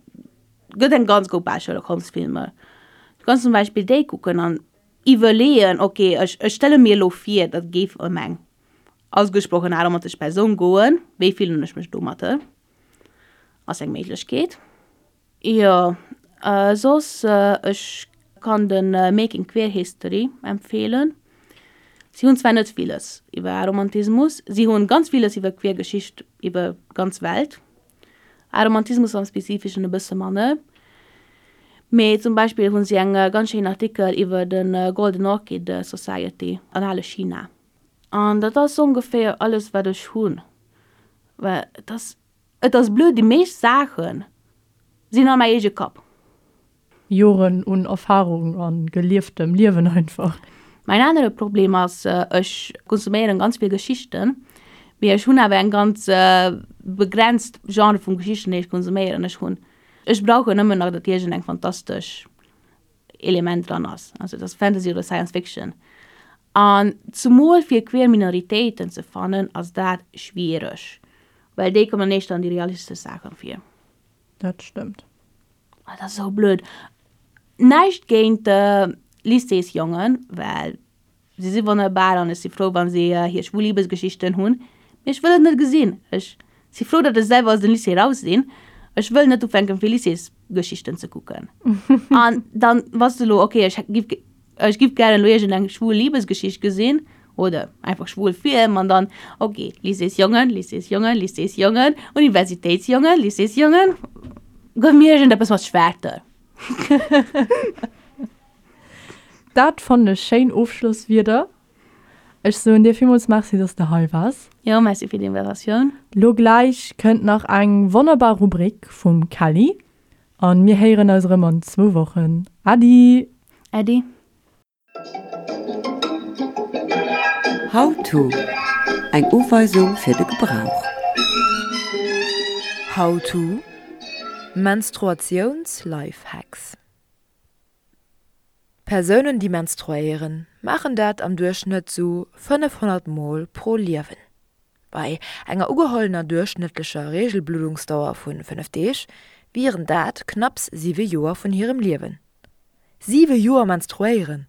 gëtt eng ganz Grupp al Sherlock Holmes Filmer. Du kanns zum Beispill déi kucken an iwwerleeën, ok, ech ech stelle mir elo vir, dat géif ëm eng ausgesprochen aromantesch Persoun goen, wéi fillen ech mech domatter? Ass eng Méiglechkeet. Jo, soss ech kann de Making Queer History empfeelen. Si hunn zwar net villes iwwer Aromantismus, si hunn ganz villes iwwer queer Geschicht iwwer ganz Welt. Aromantismus am Spezifeschen e bësse manner. Mee zum Beispill hunn si eng ganz schéin Artikel iwwer de Golden Orchid Society an ale China. An dat ass ongeféier alles wat ech hunn. Well et ass, et ass blöd, déi meescht Saache sinn an mäi eege Kapp. Joren un Erfahrung a gelieftem Liewen einfach. Mäin anere Problem ass, ech konsuméieren ganz vill Geschichten, Mee ech hunn awer eng ganz begrenzt Genre vun Geschichten, déi ech konsuméieren. Ech hunn, ech brauchen nëmmen nach, datt iergend eng fantastesch Element dran ass, also et ass Fantasy oder Science Fiction. An zumol fir queer Minoritéiten ze fannen, ass dat schwiereg, well déi kommen éischter an déi realistesch Saachen vir. Dat stëmmt. Ah, dat ass esou blöd. Näischt géint Lycéesjongen, well Si si wonnerbar an ech si frou, wa si hir schwul Libesgeschichten hunn, mee ech wëll et net gesinn. Ech si frou, datt ech selwer aus dem Lycée raus sinn. Ech wëll net ufänken, fir Lycéesgeschichten ze kucken. An dann bass de elo, okay, ech giff, ech giff gären elo iergendeng schwul Libesgeschicht gesinn oder einfach schwul Film an dann, okay, Lycéesjongen, Lycéesjongen, Lycéesjongen, Universitéitsjongen, Lycéesjongen, gëff mir iergendeppes mat Schwerter. Dat fannen ech schéin Ofschlosswierder. Ech soen dir villmools Merci, dass de hei waars. Jo, Merci fir d'Invitatioun. Lo gläich kënnt nach eng wonnerbar Rubrik vum Kelly an mir héieren eis erëm an zwou Wochen. Äddi! Äddi! How to, Eng Uweisung fir de Gebrauch. How to, Menstruatiouns-Lifehacks. Persounen, déi menstruéieren, maachen dat am Duerchschnëtt sou 500 Mol pro Liewen. Bei enger ugehollener duerchschnëttlecher Reegelbluddungsdauer vu 5 Deeg wieren dat knapps 7 Joer vun hirem Liewen. 7 Joer menstruéieren!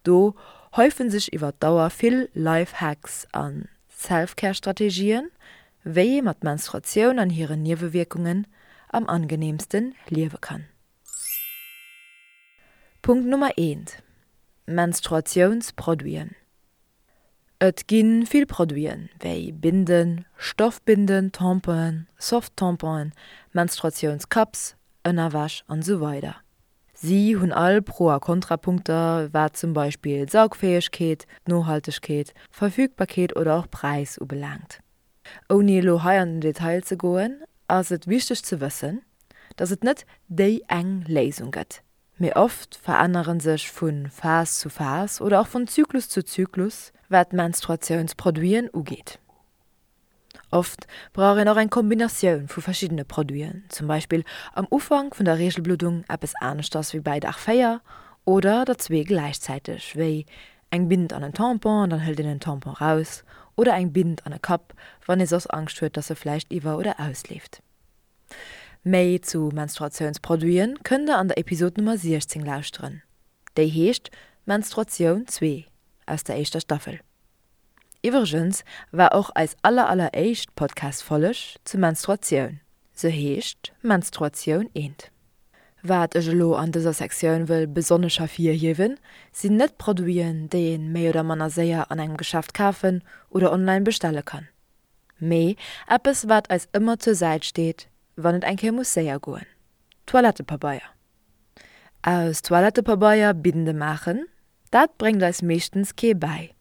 Do häufe sech iwwer d'Dauer vill Life-Hacks a Self-Care-Strategien, wéi ee mat Menstruatioun an hiren Niewewierkungen am angeneemste liewe kann. Punkt Nummer eent, Menstruatiounsproduiten. Et gi vill Produiten, wéi Binden, Stoffbinden, Tamponen, Soft-Tamponen, Menstruatiounscups, Ënnerwäsch an esou weider. Si hunn all Pro a Kontrapunkter, wat zum Beispill d'Saugfäegkeet, d'Nohaltegkeet, Verfügbarkeet oder och Präis ubelaangt. Ouni elo hei an den Detail ze goen, ass et wichteg ze wëssen, dass et net déi eng Léisung gëtt, mee oft verännere sech vu Phas zu Phas oder och vun Zyklus zu Zyklus, wat d'Menstruatiounsproduiten ugeet. Oft brauch een och eng Kombinatioun vu verschiddene Produiten, zum Beispill am Ufank vun der Reegelbluddung eppes aneschters wéi bäi Dag 4 oder der zwee gläichzäiteg, wéi Eng Bind an en Tampon an dann hëlt een en Tampon raus, oder eng Bind an e Cup, wann ee soss Angscht huet, dass e vläicht iwwer oder ausleeft. Méi zu Menstruatiounsproduiten kënnt der an der Episod Nummer 16 lauschteren, déi heescht Menstruatioun 2 aus der éischter Staffel. Iwwregens war och eis aller aller éischt Podcast-Folleg zu Menstruatioun, se heescht Menstruatioun 1. Wat ech elo an dëser Sektioun wëll besonnesch hervirhiewen, sinn net Produiten, déi een méi oder manner séier an engem Geschäft kafen oder online bestelle kann, mee eppes wat eis ëmmer zur Säit steet, wann et eng Kéier muss séier goen, Toilettepabeier. Aus Toilettepabeier Binde maachen, dat bréngt eis meeschtens kee bäi.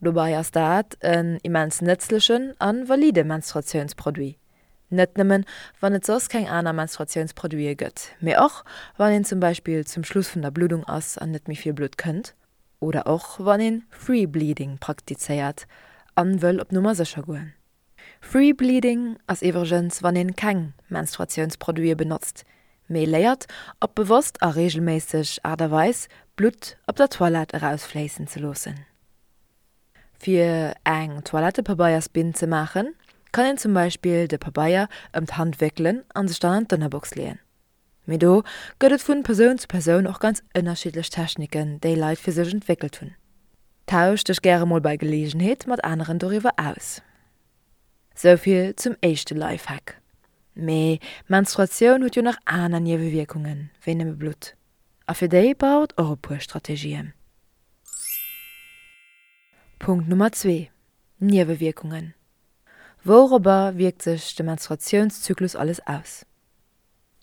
Dobei ass dat en immens nëtzlechen a valide Menstruatiounsproduit, net nëmmen wann et soss keng aner Menstruatiounsproduite gëtt, mee och wann een zum Beispill zum Schluss vun der Bluddung ass an net méi vill Blutt kënnt oder och wann een Free Bleeding praktizéiert an wëll op Nummer sécher goen. Free Bleeding ass iwwregens wann een keng Menstruatiounsproduite benotzt, mee léiert op bewosst a reegelméisseg Aart a Weis Blutt op der Toilette erausfléissen ze loossen. Fir eng Toilettepabeiersbinn ze maachen, kann een zum Beispill de Pabeier ëm d'Hand wéckelen an sech dann an d'Ënnerbox leeën. Mee do gëtt et vun Persoun zu Persoun och ganz ënnerschiddlech Techniken, déi Leit fir sech entwéckelt hunn. Tausch dech gäre mol bei Geleegenheet mat aneren doriwwer aus. Souvill zum éischte Lifehack. Mee Menstruatioun huet jo nach aner Niewewierkungen wéi nëmme Blutt. A fir déi brauch et och e puer Strategien. Punkt Nummer zwee, Niewewierkungen. Wourobber wierkt sech de Menstruatiounszyklus alles aus?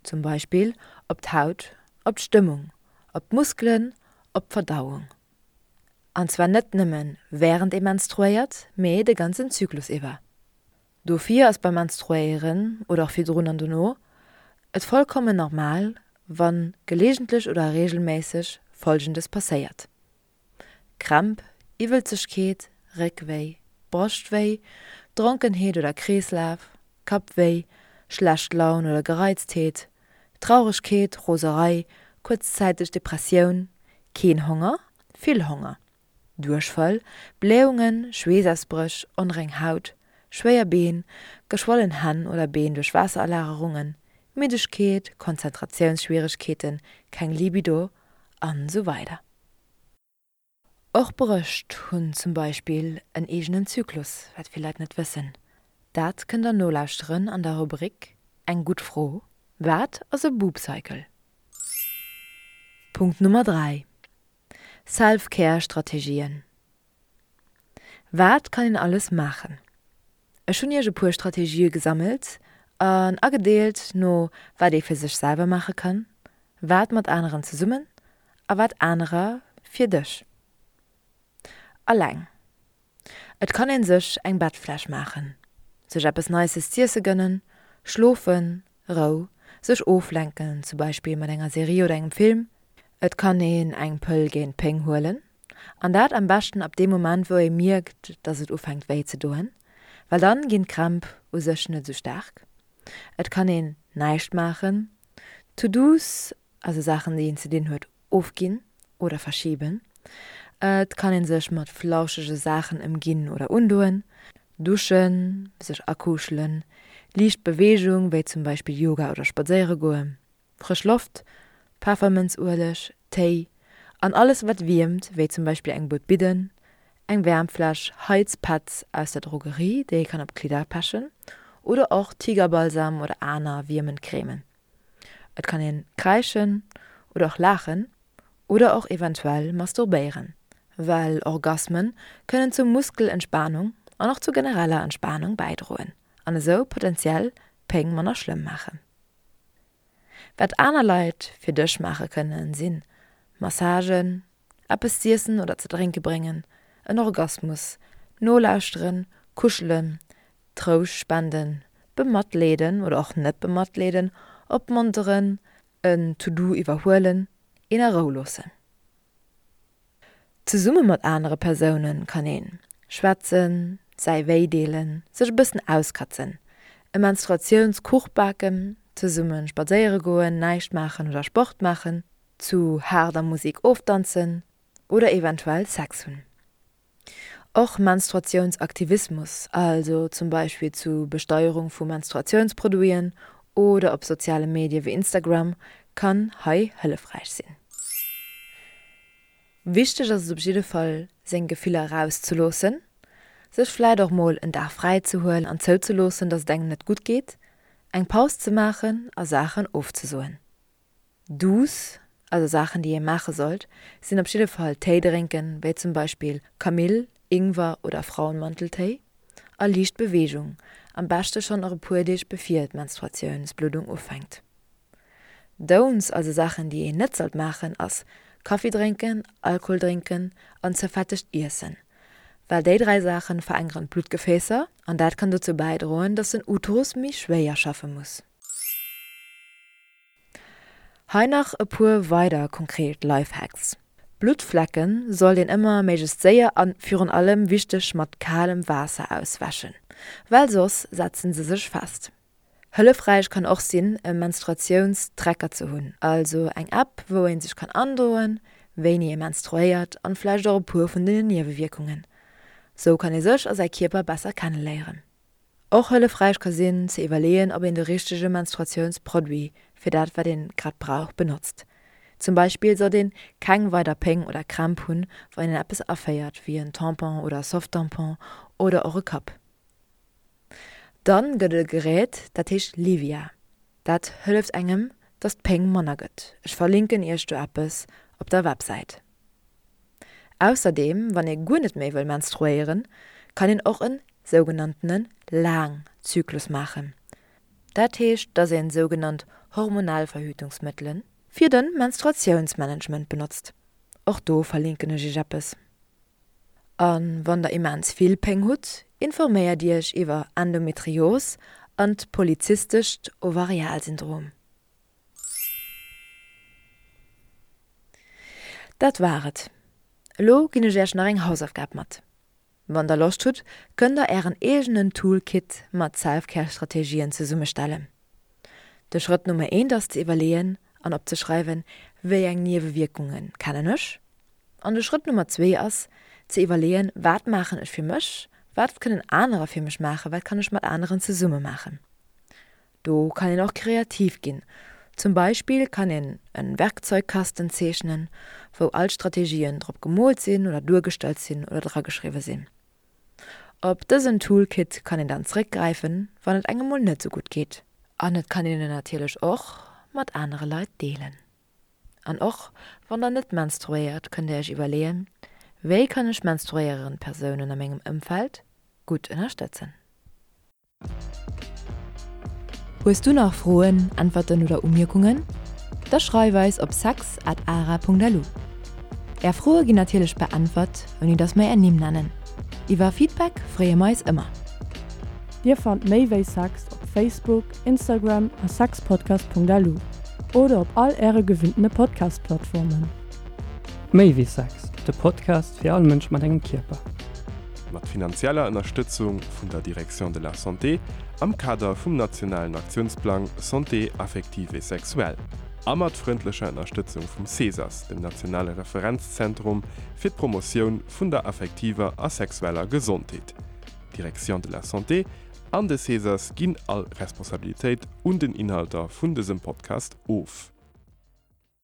Zum Beispill op d'Haut, op d'Stëmmung, op d'Muskelen, op d'Verdauung. An zwar net nëmme wärend ee menstruéiert, mee de ganzen Zyklus iwwer. Dofir ass beim Menstruéieren, oder och virdrun an dono, et vollkommen normal, wa geleegentlech oder reegelméisseg Folgendes passéiert. Krämp, Iwwelzegkeet, Réckwéi, Broschtwéi, Dronkenheet oder Kreeslaf, Kappwéi, schlecht Laun oder Gereiztheet, Trauregkeet, Roserei, kuerzzäiteg Depressioun, keen Honger, vill Honger, Duerchfall, Blähungen, Schweessausbréch, onreng Haut, schwéier Been, geschwollen Hänn oder Been duerch Waasseralagerungen, Middegkeet, Konzentratiounsschwieregkeeten, keng Libido an esou weider. Och Brëscht hunn zum Beispill en eegenen Zyklus, wat vill Leit net wëssen. Dat kënnt der nolauschteren an der Rubrik Eng gutt Fro, Wat ass e Boob Cycle? Punkt Nummer 3, Self-Care Strategien Wat kann een alles maachen? Ech hunn iech e puer Strategië gesammelt an agedeelt no wat ee fir sech selwer maache kann, wat mat aneren zesummen a wat anerer fir dech. Alleng. Et kann een sech eng Bettfläsch maachen, sech eppes Nices z'iesse gënnen, schlofen, Rou, sech oflenken, zum Beispill mat enger Serie oder engem Film. Et kann een eng Pëll géint d'Péng huelen, an dat am beschten ab deem Moment wou ee mierkt, dass et ufänkt wéi ze doen, well dann ginn d'Krämp u sech net esou staark. Et kann een näischt maachen, To-Dos, also Saachen déi een ze dinn huet, ofginn oder verschiben. Et kann een sech mat flauschege Saachen ëmginn oder undoen, duschen, sech akuschelen, liicht Beweegung wéi zum Beispill Yoga oder spadséiere goen, frësch Loft, Peffermënzueleg, Téi an alles wat wiermt wéi zum Beispill eng Buet Bidden, eng Wäermfläsch, Heizpads aus der Drogerie déi ee kann op d'Klidder pechen oder och Tigerbalsam oder aner wiermend Cremen. Et kann een kräischen oder och laachen oder och eventuell masturbéieren, well Orgasmen kënnen zur Muskelentspanung an och zur genereller Entspanung bäidroen an esou potenziell Péng manner schlëmm maachen. Wat aner Leit fir dech maache kënnen sinn Massagen, eppes z'iessen oder ze drénke bréngen, en Orgasmus, nolauschteren, kuschelen, Trouscht spenden, bematleeden oder och net bematleeden, opmonteren, en To-Do iwwerhuelen, een a Rou loossen. Zesumme mat anere Persoune kann een schwätzen, säi Wéi deelen, sech e bëssen auskatzen, e Menstruatiounskuch baken, zesumme spadséiere goen, näischt maachen oder Sport maachen, zu haarder Musek ofdanzen oder eventuell Sex hunn. Och Menstruatiounsaktivismus, also zum Beispill zu Besteierung vu Menstruatiounsproduiten oder op soziale Medie wéi Instagram, kann hei hëllefräich sinn. Wichteg ass et op jidde Fall seng Gefiller erauszeloossen, sech vläit och mol en Dag fräi ze huelen an zouzeloossen, dass et engem net gutt geet, eng Paus ze maachen a Saachen ofzesoen. Do's, also Saachen déi ee maache sollt, sinn op jidde Fall Téi drénken, wéi zum Beispill Kamill, Ingwer oder Frauenmanteltéi, a liicht Beweegung, am beschte schonn och e puer Deeg bevir d'Menstruatiounsbluddung ufänkt. Don'ts, also Saachen déi een net sollt maachen, ass Kaffi drénken, Alkohol drénken an ze fettegt iessen, well déi 3 Saachen verenkeren d'Bluttgefäässer an dat kann dozou bäidroen, dass den Uterus méi schwéier schaffe muss. Hei nach e puer weider konkret Lifehacks, Bluttflecken sollt een ëmmer méiglechst séier an virun allem wichteg mat kalem Waasser auswäschen, well soss setzen se sech fest. Hëllefräich kann och sinn e Menstruatiounstracker ze hunn, also eng App wou een sech kann androen wéini ee menstruéiert an vläicht och e puer vun den Niewewierkungen. Sou kann ee sech a säi Kierper besser kenneléieren. Och hëllefräich ka sinn, ze iwwerleeën, ob een de richtege Menstruatiounsproduit fir dat, wat een grad brauch, benotzt. Zum Beispill sollt een keng weider Péng oder Krämp hunn, wann een eppes aféiert, wéi en Tampon oder Softtampon oder och e Cup. Dann gëtt et e Gerät, dat heescht Livia. Dat hëlleft engem, dass d'Péng manner gëtt. Ech verlinken iech do eppes op der Websäit. Ausserdeem, wann ee guer net méi wëll menstruéieren, kann een och en sougenanntene Laangzyklus maachen. Dat heescht, dass een sougenannt hormonell Verhütungsmëttele fir de Menstruatiounsmanagement benotzt. Och do verlinken ech iech eppes. A wann der immens vill Péng hutt, informéiert iech iwwer Endometrios an d'polyzystescht Ovarialsyndrom. Dat war et. Elo ginn ech Iech nach eng Hausaufgab mat. Wann der Loscht hutt, kënnt der ären eegenen Toolkit mat Self-Care-Strategien zesummestellen. De Schrëtt Nummer eent ass ze iwwerleeën an opzeschreiwen, wéi eng Niewewierkunge kennen ech? An de Schrëtt Nummer zwee ass ze iwwerleeën, wat maachen ech fir mech, wat kënnen anerer fir mech maachen, wat kann ech mat aneren zesumme maachen? Do kann een och kreativ ginn. Zum Beispill kann een en Werkzeugkasten zeechnen, wou all d'Strategien drop gemoolt sinn oder duergestallt sinn oder drageschriwwe sinn. Op dësen Toolkit kann een dann zréckgräifen, wann et engem mol net sou gutt geet. An et kann een en natierlech och mat anere Leit deelen. An och wann der net menstruéiert, kënnt der iech iwwerleeën, Wéi kann ech menstruéierend Persounen a mengem Ëmfeld gutt ënnerstëtzen? Hues du nach Froen, Äntwerten oder Umierkungen? Da schreif eis op sex at ara.lu. Är Froe ginn natierlech beäntwert, ouni dass mer är Nimm nennen. Iwwer Feedback freeë mer eis ëmmer. Dir fannt méi wéi Sex op Facebook, Instagram a sexpodcast.lu oder op all äre gewinntene Podcast-Plattformen. Méi wéi Sex, de Podcast fir all Mënsch mat engem Kierper. Mat finanzieller Ënnerstëtzung vun der Direction de la Santé am Kader vum nationalen Aktiounsplang Santé affective et sexuelle a mat frëndlecher Ënnerstëtzung vum CESAS, dem nationale Referenzzentrum fir d'Promotioun vun der affektiver a sexueller Gesondheet. D'Direction de la Santé an de CESAS ginn all Responsabilitéit un den Inhalter vun dësem Podcast of.